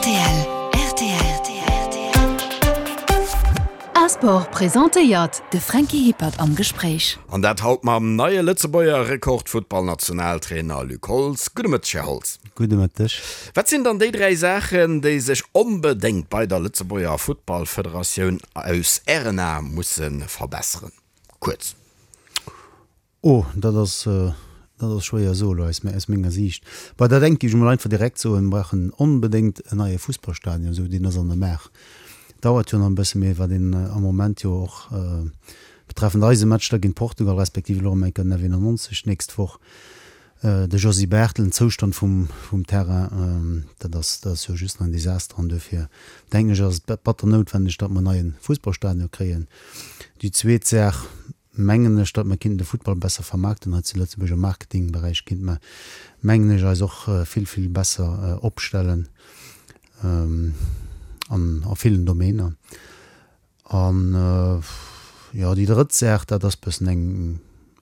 Rtl, rtl. A-Sport presentéiert de Franky Hippert am Gespréich. An dat haut mam neie Lëtzebuerger Rekordfuttballnationaltrainer Luc Holtz. Gudde Mëtteg, Här Holtz. Gudde Mëtteg. Wat sinn dann déi 3 Saachen, déi sech onbedéngt bei der Lëtzebuerger Futtballfederatioun aus Ären Ae musse verbesseren? Kuerz. Oh, dat ass, dat ass schwéier soe lo aus, aus menger Siicht. Bei dat engt géif ech mol einfach direkt soen, mir brauchen onbedéngt en neie Fussballstadion, esou deen ass an der Maach. Dauert jo nach e bësse, mee wat een am Moment jo och betreffend eise Match da géint Portugal, respektiv elo erëm eng Kéier den F91 d'nächst Woch, de Josy Barthel, den Zoustand vum, vum Terrain, dat ass, dat ass jo just nach en Desaster an duerfir denken ech ass et batter noutwendeg, datt mer en neie Fussballstadion kréien. Déi zweet Saach, mengen ech, datt mer kinnten de Futtball besser vermaarkten hei zu Lëtzebuerg. Am Marketingberäich kinnte mer, mengen ech, eis och vill, vill besser opstellen an a villen Domainer. An, jo, déi drëtt Saach, dat ass bëssen eng,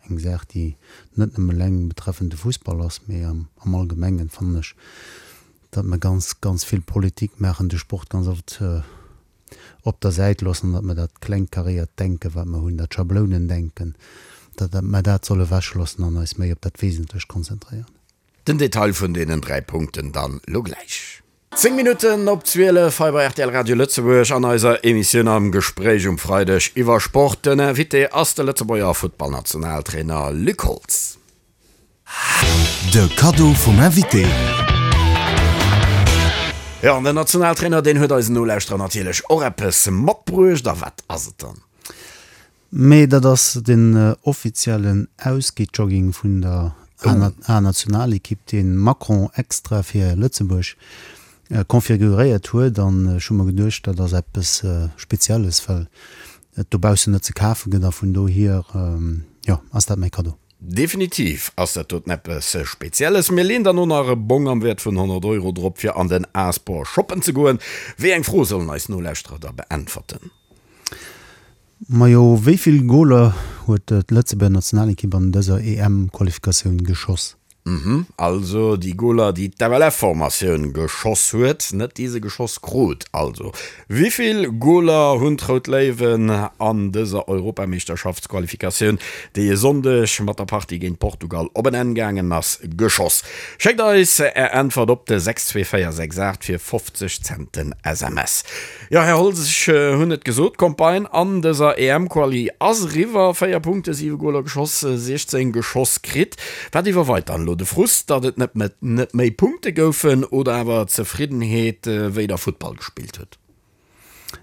eng Saach, déi net nëmme eleng betreffend de Fussball ass, mee am Allgemengen, fannen ech, datt mer ganz, ganz vill Politik maachen, de Sport ganz oft op der Säit loossen an datt mer dat klengkaréiert Denken, wat mer hunn, dat Schablounendenken, datt mer dat solle ewechloossen an eis méi op dat Wesentlecht konzentréieren. Den Detail vun deenen 3 Punkten dann lo gläich. 10 Minutten op 12 hei bei rtl Radio Lëtzebuerg an eiser Emissioun Am Gespréich um Freideg iwwer Sport. Den Invité ass de Lëtzebuerger Futtballnationaltrainer Luc Holtz. De Kaddo vum Invité. Jo, an den Nationaltrainer, deen huet eisen Nolauschterer natierlech och eppes matbruecht. A wat ass et dann? Mee dat ass den offiziellen Ausgeh-Jogging vun der A-Nationalekipp, dee Macron extra fir Lëtzebuerg configuréiert huet. An ech hu mer geduecht, dat ass eppes Spezielles, well et dobaussen net ze kafe gëtt. A vun dohier, jo, ass dat mäi Kaddo. Definitiv ass dat doten eppes Spezielles. Mir leen dann och nach e Bong am Wäert vun 100 Euro drop fir an den A-Sport shoppen ze goen. Wéi eng Fro sollen eis Nolauschterer da beäntwerten? Majo, wéi vill Goler huet d'Lëtzebuerger Nationalekipp an dëser EM-Qualifikatioun geschoss? Mhm, also déi Goler déi d'FLF-Formatioun geschoss huet, net déi se geschoss krut. Also, wivill Goler hunn d'Rout Léiwen an dëser Europameeschterschaftsqualifikatioun, déi e Sonndeg mat der Partie géint Portugal op en Enn gaangen ass, geschoss? Schéckt eis är Äntwert op de 62468 fir 50 Cent den SMS. Jo, Här Holtz, ech hunn et gesot, d'Campagne an dëser EM-Quali ass eriwwer. 4 Punkte, 7 Goler geschoss, 16 geschoss kritt. Wat iwwerweit dann elo? De Frust, datt et net net méi Punkte goufen oder awer d'Zefriddenheet, wéi Der Futtball gespillt hutt?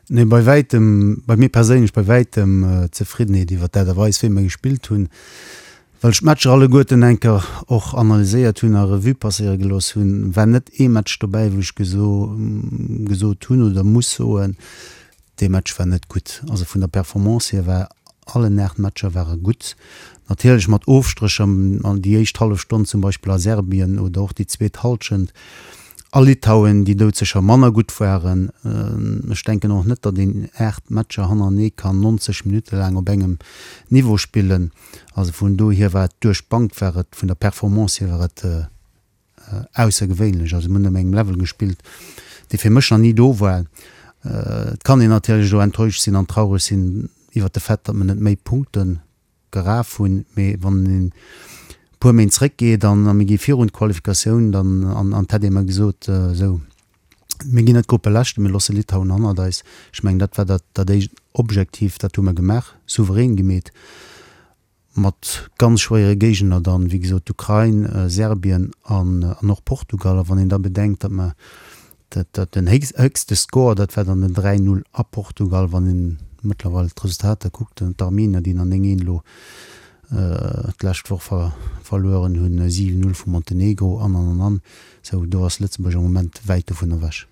Nee, bei wäitem, bei mir perséinlech bei wäitem d'Zefriddenheet iwwer d'Aart a Weis, wéi mer gespillt hunn. Well ech d'Matcher alleguerten eng Kéier och analyséiert hunn a Revue passéiere gelooss hunn, war net ee Match dobäi, wou ech gesot hunn oder muss soen, dee Match war net gutt. Also vun der Performance hier war allen 8 Matcher ware gutt. Natierlech mat Ofstrécher, déi éischt hallef Stonn zum Beispill a Serbien oder och déi zweet Hallschent a Litauen, déi doudsécher manner gutt waren. Ech denken och net, datt een 8 Matcher hannerenee kann 90 Minutte laang op engem Niveau spillen. Also vun dohier war et duerch d'Bank war et, vun der Performance hier war et aussergewéinlech. Also mir hunn op engem Level gespillt, dee fir mech nach ni do war. Et kann een natierlech elo enttäuscht sinn an traureg sinn iwwert de Fait, datt mer net méi Punkte geraf hunn, mee wann een e puer Méint zréckgeet an mir gi virun d'Qualifikatioun dann an an et hätt ee mer gesot, esou mir ginn net Gruppeleschten, mir loosse Litauen hannert eis. Ech mengen, dat war dat, dat éischt Objektiv, dat hu mer gemaach, souverän gemeet, mat ganz schwéiere Géigner dann, wéi gesot, d'Ukrain, Serbien an, an och Portugal. A wann een da bedenkt, datt mer dat, dat den héchste Score, dat war dann den 3, 0 a Portugal, wann een mëttlerweil d'Resultater kuckt, d'Armenier, déi nach 9, 1 elo d'lescht Woch verlueren hunn, 7, 0 vu Montenegro an, an, an, an. Sou, do ass Lëtzebuerg am Moment wäit dovun ewech.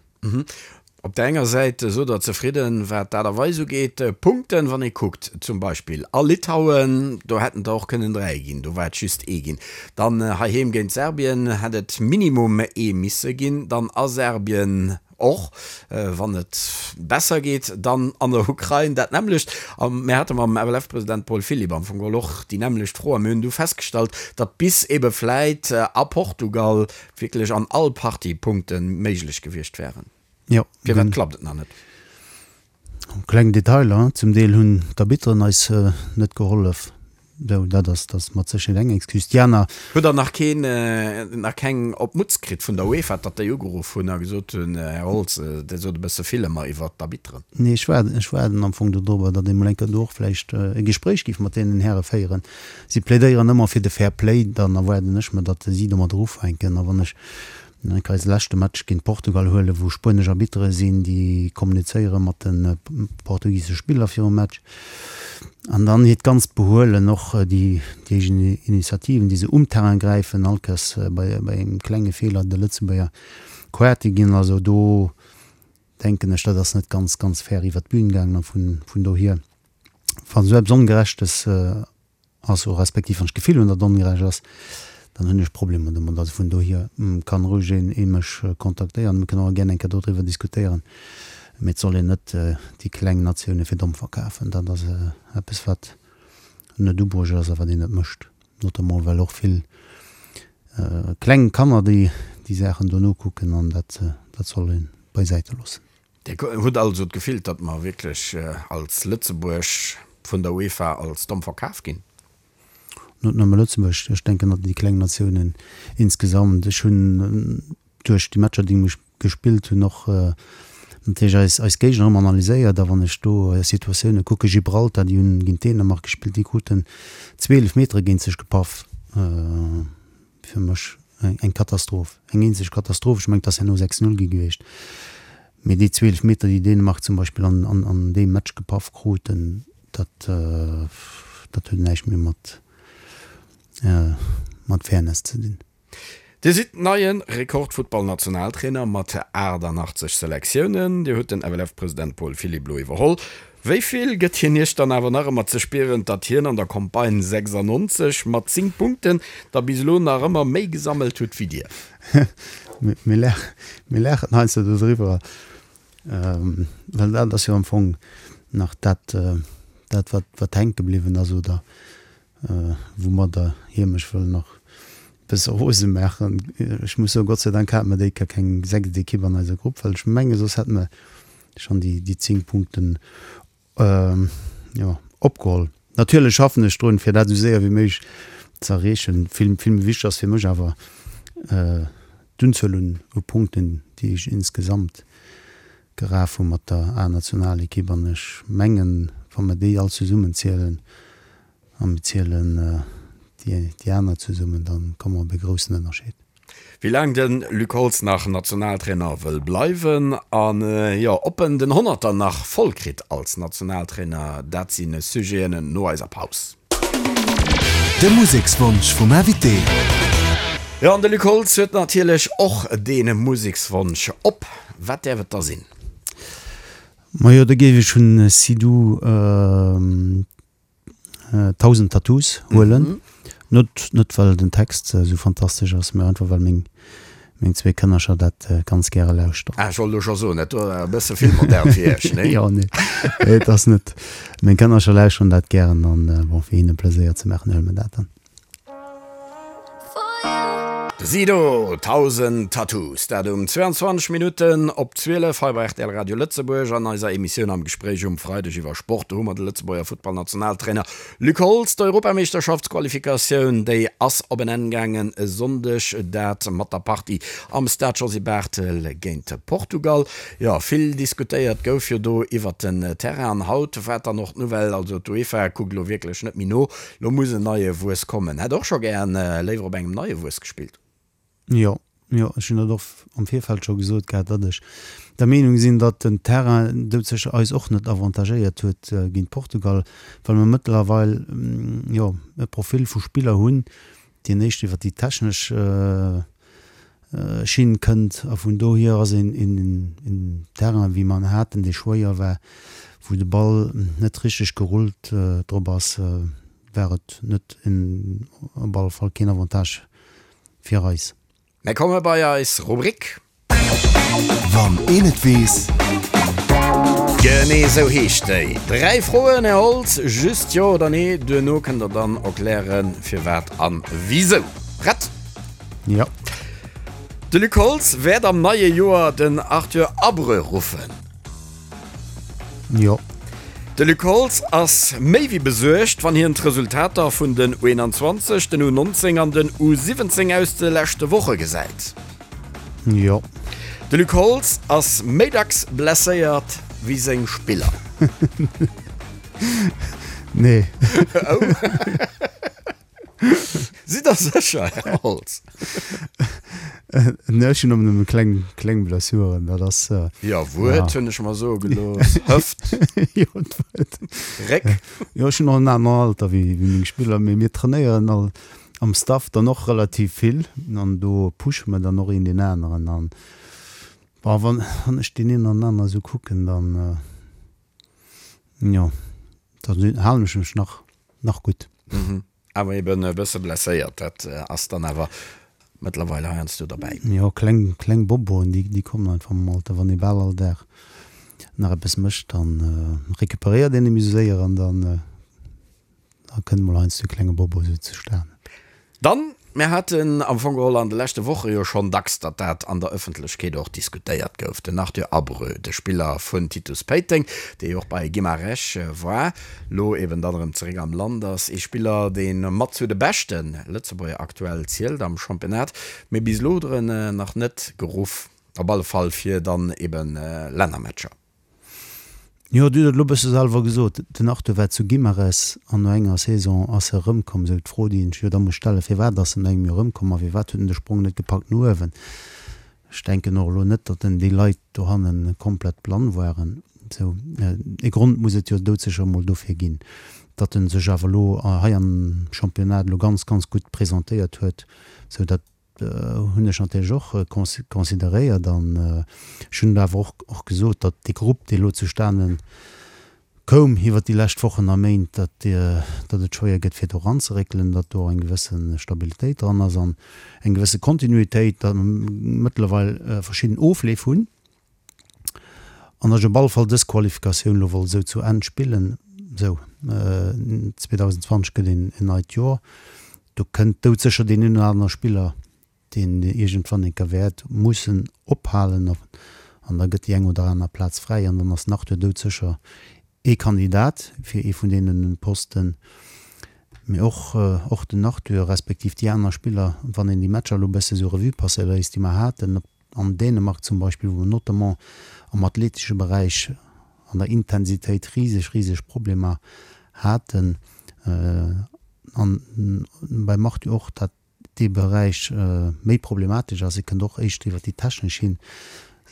Op der enger Säit sot Der zefridden, wat d'Aart a Weis ugeet, Punkten, wann ee kuckt zum Beispill a Litauen, do hätten der och kënnen 3 ginn, do war et just ee ginn. Dann heiheem géint Serbien hätt et minimum ee misse ginn, dann a Serbien Och wann et besser geet, dann an der Ukrain dat nämmlecht. A mir hate mam FLF-President Paul Philipp am Fong geholl och déi nämmlecht Fro a mir hunn du festgestallt, datt bis ebe vläit a Portugal wierklech an all Partie Punkte méiglech gewiescht wären. Jo. Firwat klappt et nach net? Kleng Detailer, zum Deel hunn d'Arbitteren eis net gehollef. Sou, dat ass, dat ass mat Sécherheet eng Excuse. Déi aner. Hutt Der nach keen, nach keng op d'Mutz kritt vun der UEFA, datt déi ugeruff hunn a gesot hunn, Här Holtz, Dir sot e bësse vill ëmmer iwwert d'Arbitteren? Nee, ech waarden, ech waarden am Fong dodrobber, datt ee mol eng Kéier do och vläicht e Gespréich géif mat deenen Häre féieren. Si plädéieren ëmmer fir de Fair Play, dann erwaarden ech mer, datt si domadder ufänken. A wann ech Ech kann eise leschte Match géint Portugal huelen, wou spuenesch Arbittere sinn, déi kommunizéiere mat de portugisesche Spiller virum Match. An dann hiert ganzt Behuelen, och déi eegen Initiativen, déi se um Terrain gräifen, all Kéiers bei engem klenge Feeler de Lëtzebuerger Quarte ginn. Also do denken ech, dat ass net ganz, ganz fair iwwer d'Bün gaangen. A vun dohier, wa sou eppes Ongerechtes ass, o respektiv wann ech d'Gefill hunn, datt et ongerecht ass, dann hunn ech Problemer domat. Also vun dohier kann roueg een ee mech kontaktéieren, mir kënnen och gär eng Kéier dodriwwer diskutéieren, mee et soll een net déi kleng Natioune fir domm verkafen. Dat ass eppes wat net ubruecht ass a wat een net mécht, notamment well och vill kleng Kanner déi déi Saachen do nokucken an dat dat soll ee beisäite loossen. Dir hutt also d'Gefill, datt mer wierklech als Lëtzebuerg vun der UEFA als domm verkaf ginn? Net nëmme Lëtzebuerg, ech denken datt déi kleng Natiounen insgesamt. Ech hunn duerch déi Matcher, déi ech gespillt hunn, och natierlech eis, eis Géigner ëmmer analyséiert. A wann ech do Situatioune kucken, Gibraltar, déi hunn géint Dänemark gespillt, déi kruten zwee Eelefmetere géint sech gepaff. Fir mech eng Katastroph, eng eenzeg Katastroph. Ech mengen, et ass herno 6, 0 gi gewiescht, mee déi 12 Meter, déi Dänemark zum Beispill an, an, an deem Match gepaff kruten, dat, dat huet näischt méi mat, mat Fairness ze dinn. Dir sidd neie Rekordfuttballnationaltrainer mat 88 Selektiounen. Dir hutt den FLF-President Paul Philipp elo iwwerholl. Wéi vill gëtt hien Iech dann awer nach ëmmer ze spieren, datt hien an der Campagne 96 mat 10 Punkten der bis elo nach ëmmer méi gesammelt hutt wéi Dir? Mir laachen heiansdo dodriwwer, well dat ass jo am Fong nach dat, dat wat wat hänke bliwwen ass oder woumadder hie mech wëll nach e bësse rose maachen. Ech muss soen, Gott sei Dank hate mer déi Kéier keng sechst Ekipp an eiser Grupp, well ech menge soss hätte mer schonn déi déi 10 Punkten jo opgeholl. Natierlech schaffen ech drun, fir dat esou séier wéi méiglech ze erreechen. Vill vill méi wichteg ass fir mech awer d'Unzuel un u Punkten, déi ech insgesamt geraf hu mat der A-Nationalekipp. An ech mengen, wa mer déi all zesummen zielen a mir zielen déi déi aner zesummen, da komme mer op e groussen Ënnerscheed. Wéi laang de Luc Holtz nach Nationaltrainer wëll bleiwen an jo ob en den Honnerter nach voll kritt als Nationaltrainer, dat si Sujeten no eiser Paus. De Musekswonsch vum Invité. Jo an de Luc Holtz huet natierlech och dee Musekswonsch op. Wat däerf et da sinn? Majo, da géif ech vun Sidou 1000 Tattoos huelen. Net, net well den Text esou fantastesch ass, mä einfach well meng, meng zwee Kënnercher dat ganz gäre lauschteren. Ah, ech wollt elo scho soen, dat do war e bësse vill modern fir iech, nee? Jo, nee, et ass net. Meng Kënnercher lauschteren dat gären an bon, fir hinne Pleséier ze maachen, huele mer dat dann. De Sido, 1000 Tattoos, dat um 22 Minutten op 12 hei bei rtl Radio Lëtzebuerg an eiser Emissioun Am Gespréich um Freideg iwwer Sport. Do hu mer de Lëtzebuerger Futtballnationaltrainer Luc Holtz. D'Europameeschterschaftsqualifikatioun, déi ass op en Enn gaangen e Sonndeg, dat mat der Partie am Stade Josy Barthel géint Portugal. Jo, vill diskutéiert gouf jo do iwwert den Terrain an haut war dann och d'Nouvelle, also d'UEFA kuckt elo wierklech net méi no, Lo muss en neie Wuess kommen. Hätt och scho gären léiwer op engem neie Wuess gespillt. Jo, jo, ech hunn dat och am Virfeld scho gesot gehat, datt ech der Meenung sinn, datt den Terrain doudsécher eis och net avantagéiert huet géint Portugal, well mer mëttlerweil, jo, e Profil vu Spiller hunn, deen éischt iwwer déi technesch Schinn kënnt a vun dohier ass een een Terrain wéi mer en haten, dee schwéier war, wou de Ball net richteg gerullt drop ass, war et net en op alle Fall keen Avantage fir eis. Mir komme bei eis Rubrik. Wann een et weess. Genee esou heescht déi. Dräi Froen, Här Holtz, just Jo oder Nee. Duerno kënnt Der dann erklären, firwat an wisou. Prett? Jo. De Luc Holtz wäert am neie Joer den Arthur Abreu ruffen. Jo. De Luc Holtz ass méi wéi besuergt, wann hien d'Resultater vun den U21, den U19 an den U17 aus de leschte Woche gesäit. Jo. De Luc Holtz ass méi dacks blesséiert wéi seng Spiller. Nee. Oh. Sidd der sécher, Här Holtz? Nee, ech hunn nëmmen kleng, kleng Blessuren, dat ass. Jo, Wuert hunn ech mer soe gelooss. Hëft. Jo, d'Wuert. Réck. Jo, ech hunn och en aneren Alter wéi meng Spiller, mee mir trainéieren all am Staff dann och relativ vill an do pushe mer dann och een deen aneren an, bon, wann, wann ech deen een an anere sou kucken, dann, jo, dann halen ech mech nach, nach gutt. Mhm. Awer eben e bësse blesséiert, dat ass dann awer mëttlerweil heiansdo derbäi. Jo, kleng, kleng Boboen, déi, déi kommen einfach mam Alter. Wann ee bal all Dag nach eppes mécht, dann recuperéiert een net méi esou séier an dann, da kënnt mol heiansdo e klenge Bobo esou zustanen. Dann, mir haten am Fong geholl an de leschte Woche jo schonn dacks, datt dat an der Ëffentlechkeet och diskutéiert gouf, den Arthur Abreu, de Spiller vun Titus Péiteng, dee jo och bei Guimarães war, lo eben dann erëm zeréck am Land ass, ee Spiller, dee mat zu de beschte Lëtzebuerger aktuell zielt am Championnat, mee bis elo huet er en nach net geruff, op alle Fall fir dann eben Lännermatcher. Jo, Dir hutt et elo e bësse selwer gesot, den Arthur war zu Guimarães an no enger Saison ass e erëmkomm. Esou d'Fro, déi een sech jo da muss stellen, Firwat ass en no engem Joer erëmkomm a firwat huet en de Sprong net gepackt no uewen? Ech denken och elo net, datt en déi Leit dohanne komplett blann waren. Esou e Grond muss et jo doudsécher emol dofir ginn. Datt en sech awer elo hei am Championnat elo ganz, ganz gutt presentéiert huet, esou datt hunn ech natierlech och consideréiert an ech hunn awer och gesot, datt dee Grupp, dee elo zustane koum iwwert déi lescht Wochen a Méint, datt et schwéier gëtt fir do eranzeréckelen, datt do eng gewësse Stabilitéit dran ass an eng gewësse Kontinuitéit, datt mer mëttlerweil verschidden Ofleef hunn. An datt ech op alle Fall dës Qualifikatioun elo wollt esou zu Enn spillen. Esou, 2020 gëtt een neit Joer. Do kënnt doudsécher deen een oder anere Spiller, deen iergendwann eng Kéier wäert mussen ophalen. An da gëtt déi eng oder aner Plaz fräi. An dann ass den Arthur doudsécher ee Kandidat fir ee vun deene Posten. Mee och, och den Arthur, respektiv déi aner Spiller, wann een déi Matcher elo e bësse sou Revue passéiere léisst, déi mer haten, op An Dänemark zum Beispill, wou mer notamment am athletesche Beräich an der Intensitéit riseg, riseg Problemer haten, an beim Arthur och, dat dee Beräich méi problematesch ass, e kënnt och éischter iwwer déi technesch hin.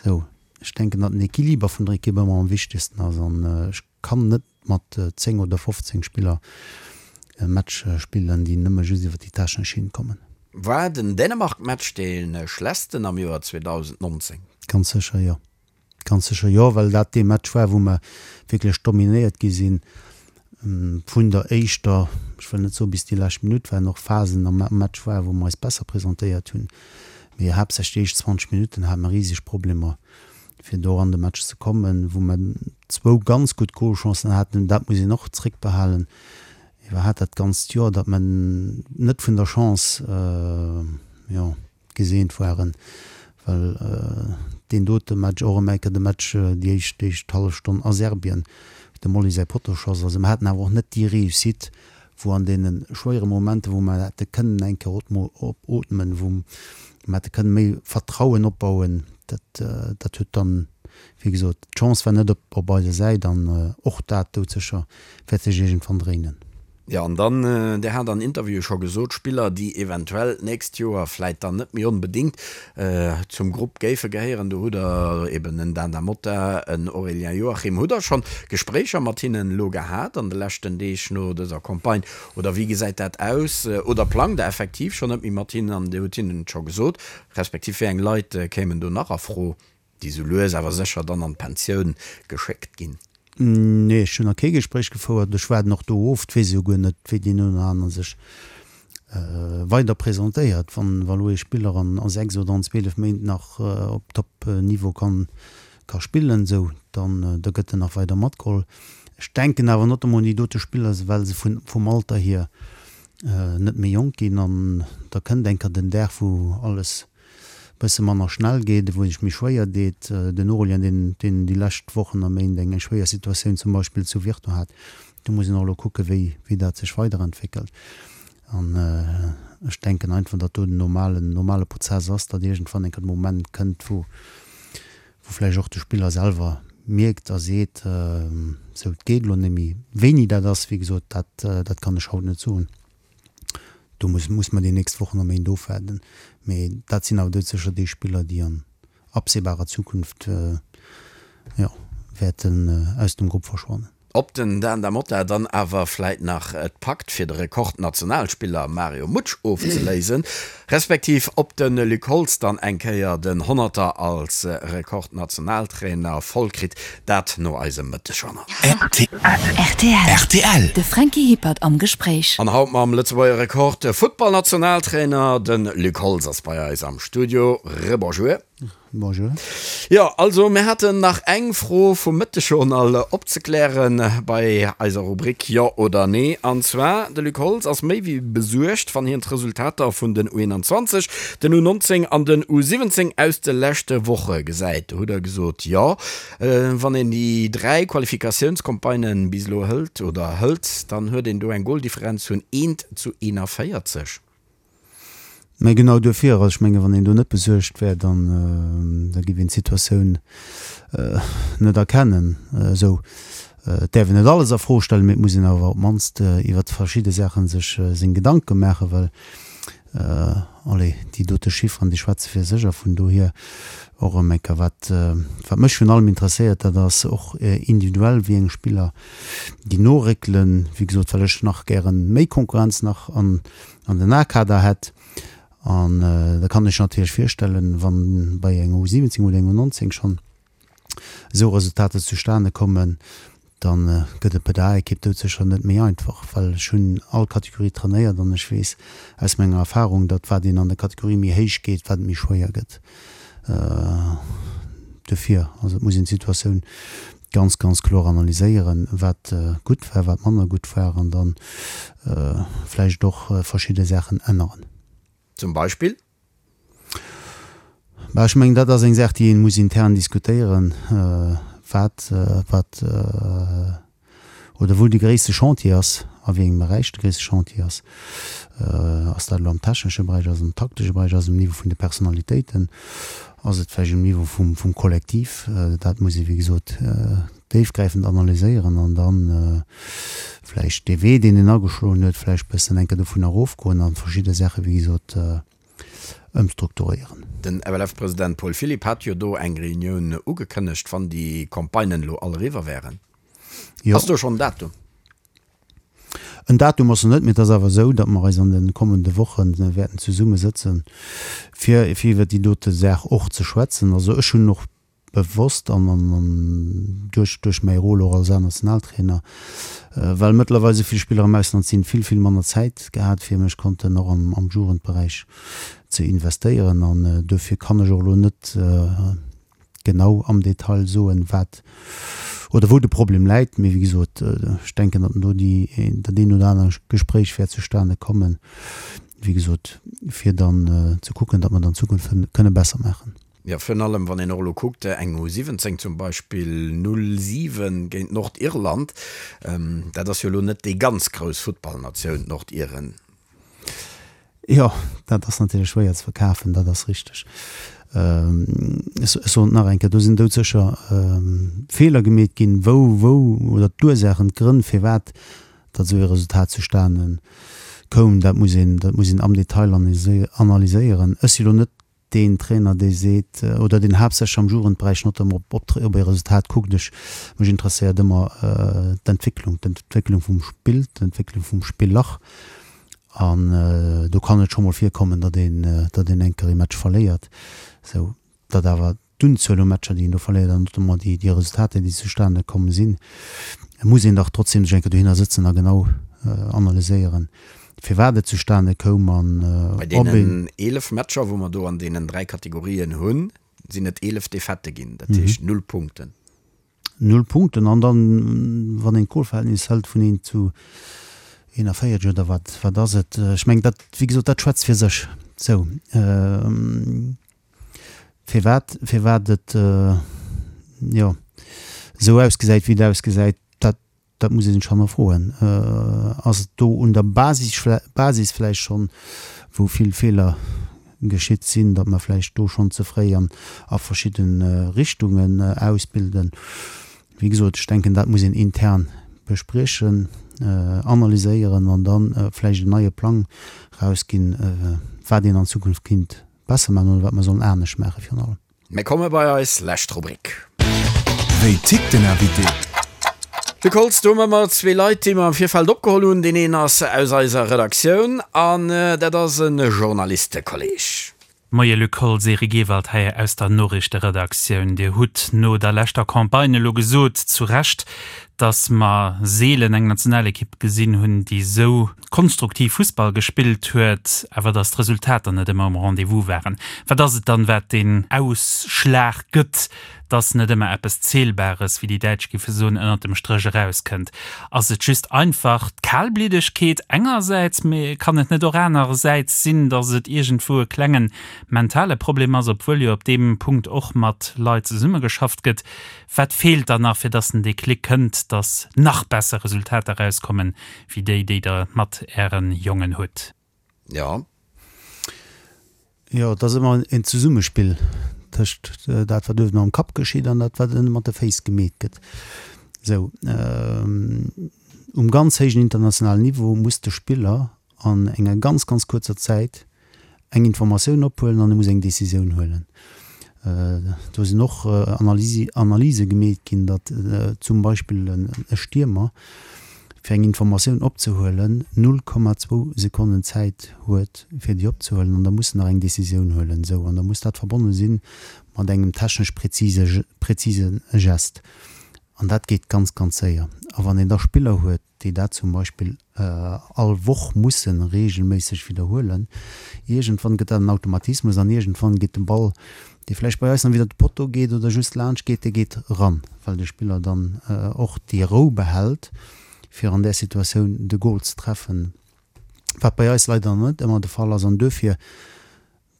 Sou, ech denken, datt den Equiliber vun der Ekipp ëmmer am wichtegsten ass an ech kann net mat 10 oder 15 Spiller e Match spillen, déi nëmme just iwwer déi technesch Schinn kommen. War den Dänemark-Match dee schlechtsten am Joer 2019? Ganz sécher jo. Ganz sécher jo, well dat dee Match war, wou mer wierklech dominéiert gi sinn vun der éischter, ech wëll net soen bis déi lescht Minutt, well och Phasen am Match waren, wou mer eis besser presentéiert hunn, mee haaptsächlech déi éischt 20 Minutten hate mer riseg Problemer fir do an de Match ze kommen, wou mer zwou ganz gutt Golchancen haten, dat muss een och zréckbehalen, iwwerhat dat ganzt Joer, datt mer net vun der Chance, jo, geseent waren, well deen dote Match, och erëm eng Kéier de Match, déi éischt, déi éischt hallef Stonn a Serbien, wou dem Oli säi Pottoschoss, also mer haten awer och net déi Réussite, wou an deene schwéiere Momenter, wou mer hätte kënnen eng Kéier opootmen, wou mer hätte kënnen méi Vertrauen opbauen, dat, dat huet dann, wéi gesot, d'Chance war net op, op eiser Säit an och dat doudsécher wäert sech iergendwann dréinen. Jo, an dann, Dir hat an Interviewe scho gesot, Spiller, déi eventuell d'nächst Joer vläit dann net méi onbedéngt zum Grupp géife gehéieren, do hutt Der eben en Dan Da Motta, en Aurélien Joachim. Hutt Der schonn Gespréicher mat hinnen elo gehat an de leschten Deeg no dëser Campagne oder wéi gesäit dat aus? Oder plangt Der effektiv schonn net méi mat hinnen an Dir hutt hinnen et scho gesot? Respektiv wéi eng Leit kéimen do nach a Fro? Déi sou lues awer sécher dann an d'Pensioun geschéckt ginn. Nee, ech hunn nach kee Gespréich gefouert. Ech waarden och do of. Et weess ee jo guer net, wéi deen een oder anere sech weider presentéiert. Wann elo ee Spiller an a 6 oder an 12 Méint nach op Top-Niveau kann ka spillen, esou, dann da gëtt en nach weider matgeholl. Ech denken awer notamment un déi dote Spiller, well se vun vum Alter hier net méi jonk ginn an da kënnt eng Kéier den Dag, wou alles. Bësse manner schnell geet, wou sech méi schwéier deet. Den Aurélien, deen, deen déi lescht Wochen a Méint eng schwéier Situatioun zum Beispill zu Virton hat, do muss een och elo kucke wéi, wéi dat sech weiderentwéckelt. An ech denken einfach, datt do den normalen, normale Prozess ass, datt iergendwann eng Kéier de Moment kënnt, wou, wou vläicht och de Spiller selwer mierkt a seet, sou et geet elo net méi. Wéini dat ass, wéi gesot, dat, dat kann ech haut net soen. Do muss muss mer déi nächst Wochen a Méint ofwaarden. Mee dat sinn awer doudsécher déi Spiller, déi an absehbarer Zukunft, jo, wäerten aus dem Grupp verschwannen. Ob den Dan Da Motta dann awer vläit nach et packt, fir de Rekordnationalspiller Mario Mutsch ofzeléisen, respektiv ob de Luc Holtz dann eng Kéier den Honnerter als Rekordnationaltrainer voll kritt, Dat no eisem Mëttegjournal. Rtl. De Franky Hippert am Gespréich. An haut mam Lëtzebuerger Rekord Futtballnationaltrainer, de Luc Holtz ass bei eis am Studio. Rebonjour. Bonjour. Jo, also mir haten nach eng Fro vum Mëttegjournal opzeklären bei eiser Rubrik Jo oder Nee. An zwar, de Luc Holtz ass méi wéi besuergt, wann hien d'Resultater vun den U21, den U19 an den U17 aus de leschte Woche gesäit. Do hutt Der gesot, jo. Wann een déi 3 Qualifikatiounscampagnen bis elo hëlt oder hëlt, dann huet een do eng Goldifferenz vun 1 zu 41. Mä genau duerfir, also ech menge wann een do net besuergt wär, dann da géif een d'Situatioun net erkennen. Esou, et däerf een net alles a Fro stellen, mee et muss een awer op d'mannst iwwert verschidde Saache sech seng Gedanke maachen, well Allez, déi dote Chifferen, déi schwätze fir sech a vun dohier och erëm eng Kéier, wat, wat mech virun allem interesséiert, dat ass och individuell, wéi eng Spiller déi noréckelen. Wéi gesot, well ech nach gäre méi Konkurrenz nach an, an den A-Kader hätt. An da kann ech natierlech virstellen, wann bei enger U17 oder enger U19 schonn esou Resultater zustane kommen, da gëtt et bei der A-Ekipp doudsécher net méi einfach, well ech hunn all Kategorie trainéiert an ech weess aus menger Erfahrung, datt wat een an der Kategorie méi héich geet, wat et méi schwéier gëtt. Dofir, also et muss een d'Situatioun ganz, ganz kloer analyséieren, wat gutt war, wat manner gutt war an da vläicht och verschidde Saachen änneren. Zum Beispill? Bah, ech mengen, dat ass eng Saach, déi ee muss intern diskutéieren, wat, wat oder wou de gréisste Chantier ass, a wéi engem Beräich de gréisste Chantier ass. Ass dat elo am technesche Beräich, ass et am taktesche Beräich, ass et um Niveau vun de Personalitéiten, ass et vläicht um Niveau vum, vum Kollektiv? Dat muss ee wéi gesot déifgräifend analyséieren an da vläicht dee Wee, deen een ageschloen huet, vläicht bëssen eng Kéier dovun erofgoen a verschidde Saache wéi gesot ëmstrukturéieren. Den FLF-President Paul Philipp hat jo do eng Reunioun ugekënnegt, wann déi Campagnen elo all eriwwer wären. Jo. Ass do schonn en Datum? En Datum ass nach net, mee et ass awer esou, datt mer eis an de kommende Woche wäerten zesummesëtzen, fir iwwer déi dote Saach och ze schwätzen. Also ech hunn och bewosst an an duerch duerch mäi Rôle och als A-Nationaltrainer, well mëttlerweil esou vill Spiller am Ausland sinn, vill vill manner Zäit gehat fir mech konnten och am am Jugendberäich ze investéieren an duerfir kann ech och elo net genau am Detail soen, wat oder wou de Problem läit. Mee wéi gesot, ech denken, datt do déi dat een oder aner Gespréich wäert zustane kommen, wéi gesot, fir dann ze kucken, datt mer et an Zukunft kënne besser maachen. Jo, virun allem wann een och elo kuckt, eng U17 zum Beispill 0, 7 géint Nordirland, dat ass jo elo net déi ganz grouss Futtballnatioun, d'Nordiren. Jo, dat ass natierlech schwéier ze verkafen, dat ass richteg. Ech soen et nach eng Kéier, do sinn doudsécher Feeler gemeet ginn, wou, wou, oder d'Ursaachen, d'Grënn firwat datt esou ee Resultat zustane koum, dat muss een, dat muss een am Detail analyséieren. Ech si lo net deen Trainer, dee seet, oder deen haaptsächlech am Jugendberäich notamment op op e Resultat kuckt. Ech, mech interesséiert ëmmer d'Entwécklung, d'Entwécklung vum Spill, d'Entwécklung vum Spiller. An do kann et scho mol virkommen, datt een, datt een eng Kéier ee Match verléiert, sou datt awer d'Unzuel u Matcher, déi een do verléiert an notamment déi, déi Resultater, déi zustane komm sinn, muss een dach trotzdem sech eng Kéier dohinner sëtzen a genau analyséieren, firwat et zustane koum an Bei ob een. deenen 11 Matcher, wou mer do an deenen 3 Kategorien hunn, sinn et 11 Defaitë ginn, dat heescht null Punkten. Null Punkten. An dann, wann een d'Golverhältnis hëlt vun 1 zu 41 oder wat, wat ass et? Ech mengen, dat, wéi gesot, dat schwätzt fir sech. Sou. Firwat, firwat et, jo, esou ausgesäit, wéi et ausgesäit, dat, dat muss ee sech hannerfroen. Ass et do un der Basis, Basis vläicht schonn, wou vill Feeler geschitt sinn, datt mer vläicht do schonn ze fréi an a verschidde Richtungen ausbilden? Wéi gesot, ech denken, dat muss een intern bespriechen, analyséieren an da vläicht en neie Plang erausginn, wat een an Zukunft kinnt besser maachen oder wat mer sollen anescht maache virun allem. Mir komme bei eis lescht Rubrik. Wéi tickt den Invité? De Kolz, do hu mer zwee Leit, déi mer am Virfeld opgeholl hunn. Deen een ass aus eiser Redaktioun an dat ass e Journalistekolleg. Moie Luc Holtz, Eric Ewald hei aus der Noriichteredaktioun. Dir hutt no der leschter Campagne elo gesot, zu Recht, datt mer seelen eng Nationalekipp gesinn hunn, déi esou konstruktiv Fussball gespillt huet, awer datt d'Resultater net ëmmer um Rendez-vous waren. Wat ass et dann, wat deen Ausschlag gëtt, datt net ëmmer eppes Zählbares, wéi déi Däitsch géife soen, ënnert dem Stréch erauskënnt? Ass et just einfach d'Kalbliddegkeet engersäits, mee kann et net och anerersäits sinn, datt et iergendwou e klenge mentale Problem ass, obwuel jo op deem Punkt och mat Leit zesummegeschafft gëtt? Wat feelt dann nach, fir datt den Déclic kënnt, datt nach besser Resultater erauskommen, wéi déi, déi Der mat Äre Jongen hutt. Jo. Jo, et ass ëmmer en Zesummespill tëscht dat, wat uewen am Kapp geschitt an dat, wat ënne mat de Féiss gemeet gëtt. Esou, um ganz héijen internationalen Niveau muss de Spiller an enger ganz, ganz kuerzer Zäit eng Informatioun ophuelen an e muss eng Decisioun huelen. Do sinn och Analyse gemeet ginn, datt zum Beispill e Stiermer, fir eng Informatioun opzehuelen, 0,2 Sekonnen Zäit huet, fir déi opzehuelen an da muss en nach eng Decisioun huelen. Esou, an da muss dat verbonne si mat engem technesch präzise Gest. An dat geet ganz, ganz séier. A wann een da Spiller huet, déi dat zum Beispill all Woch musse reegelméisseg widderhuelen, iergendwann gëtt dat en Automatismus an iergendwann geet de Ball, dee vläicht bei eis nach widder de Potto geet oder just laanscht geet, dee geet eran, well de Spiller dann och déi Rou behält, fir an där Situatioun de Gol ze treffen, wat bei eis leider net ëmmer de Fall ass. An duerfir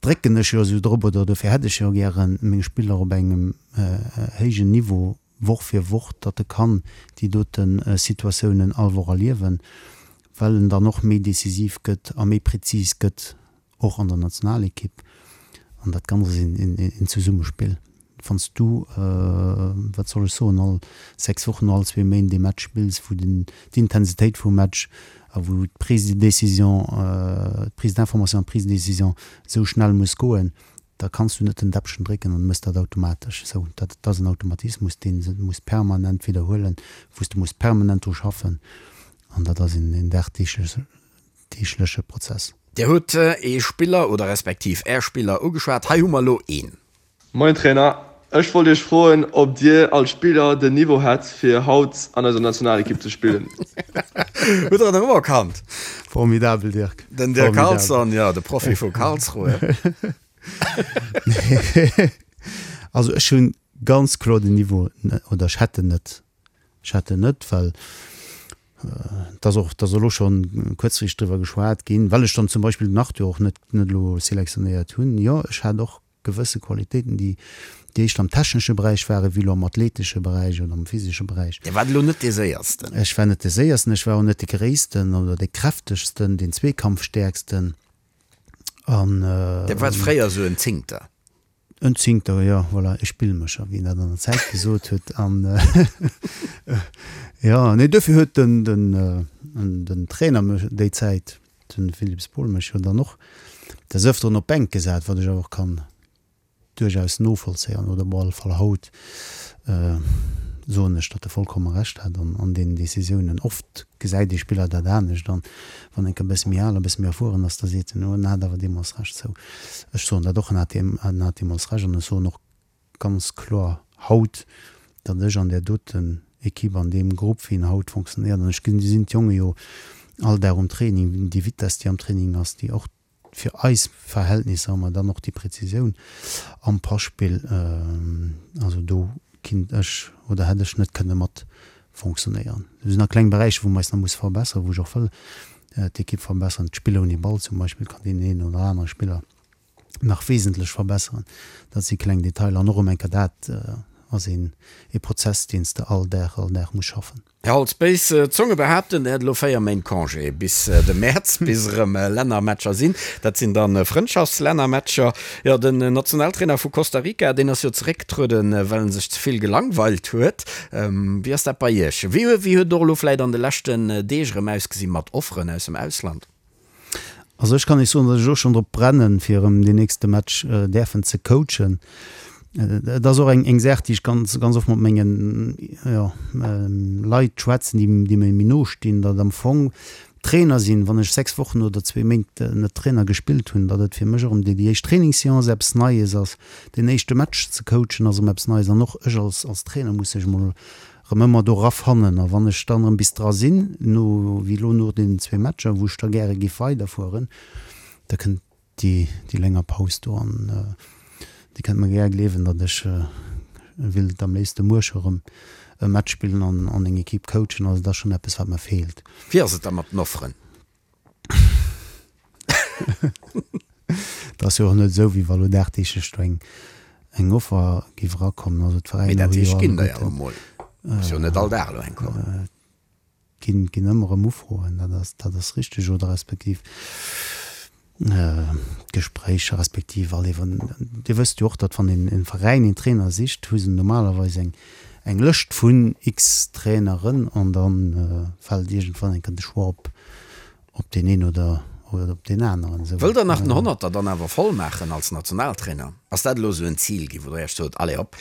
drécken ech jo esou drop, oder dofir hätt ech jo gären meng Spiller op engem héijen Niveau Woch fir Woch, datt e kann déi dote Situatiounen all Woch erliewen, well en dann och méi decisiv gëtt a méi prezis gëtt, och an der Nationalekipp. An dat Ganzt ass een Zesummespill. Wann s du, wat soll ech soen, all 6 Wochen, all zwee Méint ee Match spills, wou d'Intensitéit vum Match a wou d'Prise de décision, d'Prise d'information an d'Prise de décision esou schnell muss goen, da kanns du net den Däppchen drécken an mëss dat automatesch. Esou, dat ass en Automatismus, dee se muss permanent widderhuelen, wou s de muss permanent dru schaffen an dat ass een dagdeegleche Prozess. Dir hutt ee Spiller oder respektiv Är Spiller ugeschwat. Hei hu mer elo een. Moien Trainer, ech wollt iech froen ob dir als Spiller den Niveau hätt fir haut an eiser Nationalekipp ze spillen? Hutt der en erëmerkannt? Formidabel Dirk. Den Dirk Carlson, jo, de Profi vu Karlsruhe. Also ech hunn ganz kloer den Niveau, oder ech hätt en net. Ech hätt en net, well et ass och, et ass elo schonn kuerzfristeg driwwer geschwat ginn, well ech dann zum Beispill den Arthur och net net elo selektionéiert hunn. Jo, ech hat och gewësse Qualitéiten, déi déi éischter am technesche Beräich waren, wéi elo am athletesche Beräich oder am physesche Beräich. Dir waart elo net dee Séiersten. Ech war net dee Séiersten, ech war och net dee Gréissten oder dee Kräftegsten, deen Zweekampfstäerksten an. Dir waart fréier esou en Zingter. En Zingter, jo, voilà, e Spillmécher, wéi een dat an der Zäit gesot huet. An jo, nee, duerfir huet den, den, den Trainer mech déi Zäit, den Philippe Spohl, mech jo dann och des Ëfteren op d'Bänk gesat, wat ech awer och kann duerchaus novollzéien, oder op alle Fall haut soen ech, datt e vollkomme Recht hat an deenen Decisiounen. Oft gesäit ee Spiller dat anescht an wann enk e bësse méi al a bësse méi erfueren ass, da seet en, oh en hat awer deemools Recht. Sou, ech soen dat och, en hat en hat deemools Recht an ech soen och ganz kloer haut, datt ech an där doten Equipe, an deem Grupp, wéi en haut fonctionnéiert, an ech gesinn d'Jonge jo all Dag um Training, déi Vitess, déi am Training ass, déi och fir eis Verhältnisser hu mer dann och déi Präzisioun am Passpill. Also do kinnt ech oder hätt ech net kënne mat fonctionnéieren. Do sinn nach kleng Beräicher, wou mer eis nach musse verbesseren, wou ech och wëll d'Ekipp verbesseren. D'Spiller ouni Ball zum Beispill kann deen een oder anere Spiller. nach wesentlech verbesseren. Dat si kleng Detailer an och erëm eng Kéier dat ass een ee Prozess, deen s de all Dag, all Dag muss schaffen. Här Holtz, béis Zonge behaapten, Der hätt elo 4 Méint Congé bis de Mäerz, bis erëm Lännermatcher sinn. Dat sinn dann Frëndschaftslännermatcher. Jo, den Nationaltrainer vu Costa Rica, deen ass jo zeréckgetrueden, well en sech ze vill gelangweilt huet. Wéi ass dat bei Iech? Wéi huet et och elo vläit an de leschten Deeg erëm ausgesi mat Offeren aus dem Ausland? Also ech kann Iech soen, datt ech och schonn drop brennen, fir erëm deen nächste Match däerfen ze coachen. Et ass och eng eng Saach, déi ech ganz ganz oft mat mengen, jo, Leit schwätzen, déi déi mir méi no stinn, datt am Fong Trainer sinn, wann ech 6 Wochen oder zwee Méint net Trainer gespillt hunn, datt et fir mech erëm déi déi éischt Trainingsseance eppes Neies ass, deen éischte Match ze coachen ass erëm eppes Neies an och ech als als Trainer muss sech emol Rëm ëmmer do rafannen. A wann ech dann erëm bis dra sinn, no, wéi elo no deenen zwee Matcher, wou ech da gäre géif weiderfueren, da kënnt déi, déi länger Paus do an Dir kënnt mer gär gleewen, datt ech willt am léifste muer scho rëm e Match spillen an, an eng Equipe coachen. Also dat ass schonn eppes, wat mer feelt. Wéi ass et da mat den Offeren? Et ass jo och net esou, wéi wa lo dagdeeglech do eng, eng Offer géif erakommen. Also Mee d'Veräiner dat hu jo heescht, ginn der jo alleguerten, emol. Muss jo net all Dag elo eng kommen. ginn, ginn ëmmer erëm Ufroen, dat ass, dat ass richteg. Oder respektiv Gespréicher, respektiv all iwwer, Dir wësst jo och, datt wann een e Veräin een Trainer sicht, hu se normalerweis eng, eng Lëscht vun x Traineren an da fält iergendwann eng Kéier de Choix op, op deen een oder oder op deen aneren. Esou. Wëllt Der nach den Honnerter dann awer voll maachen als Nationaltrainer? Ass dat elo esou en Zil ginn, wou Der Iech sot, allez hopp,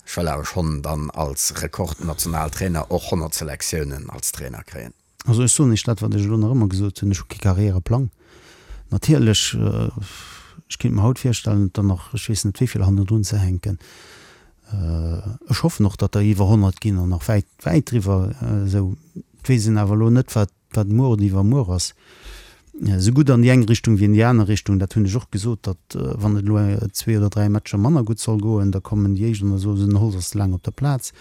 ech wëll awer schonn dann als Rekordnationaltrainer och 100 Selektiounen als Trainer kréien? Also ech soen Iech dat, wat ech elo nach ëmmer gesot hunn, ech hu kee Karriereplang. Natierlech, ech kéint mer haut virstellen, et der nach ech weess net wéi vill hannendrun ze hänken. Ech hoffen och, datt der iwwer 100 ginn an nach wäit, wäit driwwer esou. Et weess een awer elo net, wat Wat muer oder iwwermuer ass, esou gutt an déi eng Richtung wéi an déi aner Richtung, dat hunn ech och gesot, datt wann et elo zwee oder dräi Matcher manner gutt soll goen, da kommen déi éischt an da soe se, den Holtz ass ze laang op der Plaz.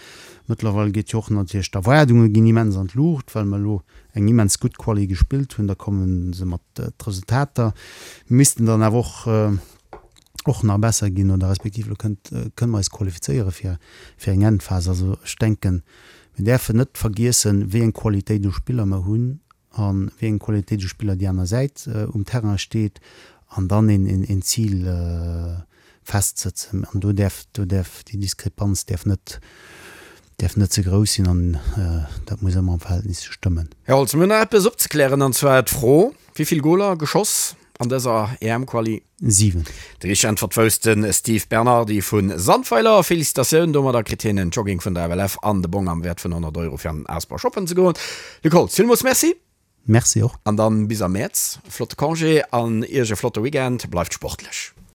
Mëttlerweil geet jo och natierlech, d'Erwaardunge ginn immens an d'Luucht, well mer elo eng immens gutt Quali gespillt hunn. Da komme se mat d'Resultater missten dann awer och och nach besser ginn oder respektiv elo kënnt kënne mer eis qualifizéiere fir fir eng Endphas. Also ech denken, Mir däerfen net vergiessen, wéi eng Qualitéit u Spiller mer hunn a wéi eng Qualitéit u Spiller déi aner Säit um Terrain steet an dann een Zil festsëtzen. An do däerf, do däerf déi Diskrepanz däerf net, däerf net ze grouss sinn an dat muss ëmmer am Verhältnis stëmmen. Här Holtz, mir hunn nach eppes opzeklären, an zwar d'Fro, Wéi vill Goler geschoss an dëser EM-Quali? 7. Déi richteg Äntwert wousst de Steve Bernardi vu Sandweiler. Felicitatioun! Domadder kritt hien en Jogging vun der FLF an de Bong am Wäert vun 100 Euro fir an den Asper shoppen ze goen. Luc Holtz, villmools Merci! Merci och. An dann bis am Mäerz. Flotte Congé an Iech e flotte Weekend. Bleift sportlech!